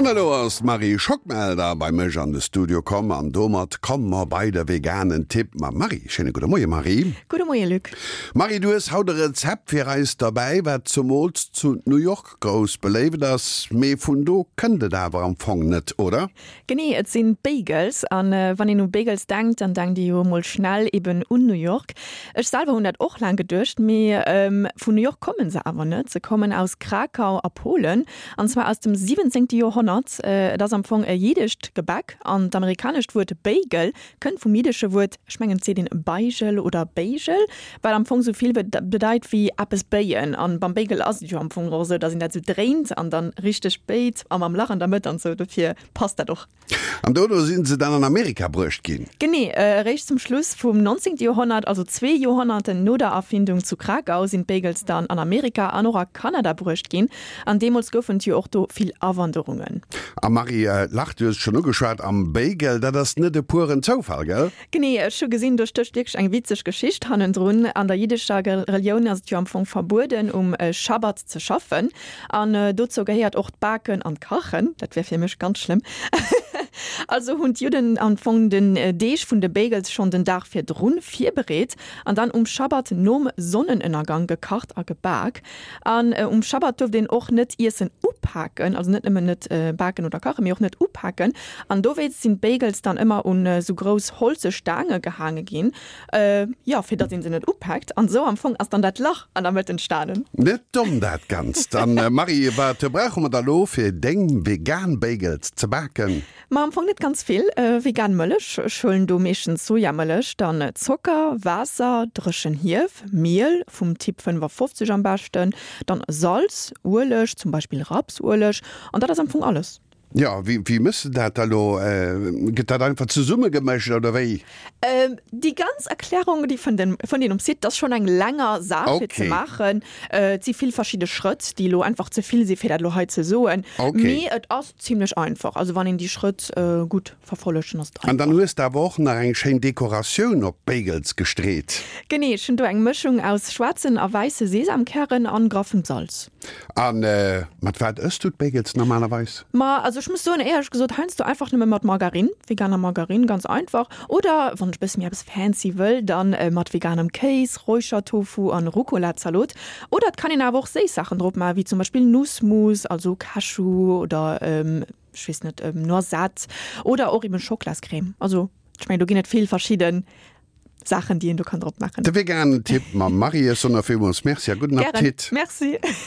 An elo ass d'Marie Schockmelder bei mech an de Studio komm an domat komme mer bei de veganen Tipp mam Marie. Schéine gudde Moie Marie. Gudde Moie Luc. Marie, du hues haut e Rezept fir eis derbäi, wat zumools zu New York grouss beléift ass, mee vun do kënnt et awer am Fong net, oder? Genee, et sinn d'Bagels. An wann een u Bagels denkt, dann denkt ee jo emol schnell eben un New York. Ech selwer hunn dat och laang geduecht, mee vun New York kommen se awer net. Se kommen aus Krakau a Polen, an zwar aus dem 17. Joerhonnert. Et ass am Fong e jiddescht Gebäck an d'amerikanescht Wuert Bagel kënnt vum jiddesche Wuert, ech mengen et seet een Beigel oder Béigel, wat am Fong sou vill bedeit wéi eppes béien. An beim Bagel ass et jo am Fong och esou, dass een dat sou dréint an dann richteg béit a mam Lach an der Mëtt an sou, dofir passt dat och. An dono sinn se dann an Amerika bruecht ginn. Genee, eréischt zum Schluss vum 19. Joerhonnert, also zwee Joerhonnerten no der Erfindung zu Krakau, sinn d'Bagels dann an Amerika an och a Kanada bruecht ginn. An deemools goufen et jo och do vill Awanderungen. A Marie Lach, du hues et schonn ugeschwat, am Bagel, dat ass net e pueren Zoufall, gell? Genee, ech hu gesinn, do stécht wierklech eng witzeg Geschicht hannendrun. An der jiddescher Relioun ass et jo am Fong verbueden, um Schabbat ze schaffen. An dozou gehéiert och d'Baken an d'Kachen. Dat wär fir mech ganz schlëmm. Also hunn d'Judden am Fong den Deeg vun de Bagels schonn den Dag virdrun virbereet an dann um Schabbat nom Sonnenënnergang gekacht a gebak. An um Schabbat duerft een och net Iessen upaken, also net nëmmen net baken oder kachen, mee och net upaken. An dowéinst sinn d'Bagels dann ëmmer un esou grouss holze Staange gehaange ginn, jo, fir datt een se net upaakt. An esou am Fong ass dann dat Lach an der Mëtt entstanen. Net domm dat Ganzt. An Marie, wat brauche mer da lo fir deng vegan Bagels ze baken? Ma am Fong net ganz vill. Vegan Mëllech, ech huelen do meeschtens Sojamëllech, dann Zocker, Waasser, dréchen Hief, Miel, vum Typ 55 am beschten, dann Salz, Ueleg, zum Beispill Rapsueleg, an dat ass am Fong alles. Jo, wéi mëss de dat da lo? Gëtt dat einfach zesummegemëscht oder wéi? Déi ganz Erklärung, déi fënnt een um Site. Dat ass schonn eng länger Saach fir ze maachen. Et si vill verschidde Schrëtt, déi elo einfach ze vill si fir dat elo hei ze soen. Mee et ass Zimlech einfach, also wann een déi Schrëtt gutt verfollegt, dann ass et einfach. An dann hues de awer och nach eng schéin Dekoratioun op d'Bagels gestreet. Genee, ech hunn do eng Mëschung aus schwaarzen a wäisse Sesamkären an graffem Salz. A mat wat ëss du d'Bagels normalerweis? Ma also ech muss soen, éierlech gesot heiansdo einfach nëmme mat Margarine, veganer Margarine, ganz einfach. Oder wann ech bësse méi eppes fancy wëll, dann mat veganem Kéis, Räuchertofu an Rucola-Zalot. Oder et kann een awer och séiss Saachen drop maachen, wéi zum Beispill Nussmus, also Cashew oder ech weess net, Noisette oder och eben Schoklascrème. Also ech mengen do ginn et vill verschidde Saachen, déi een do kann drop maachen. De veganen Tipp mam Marie. Ech soen der villmools Merci a gudden Appetit. Gären, Merci.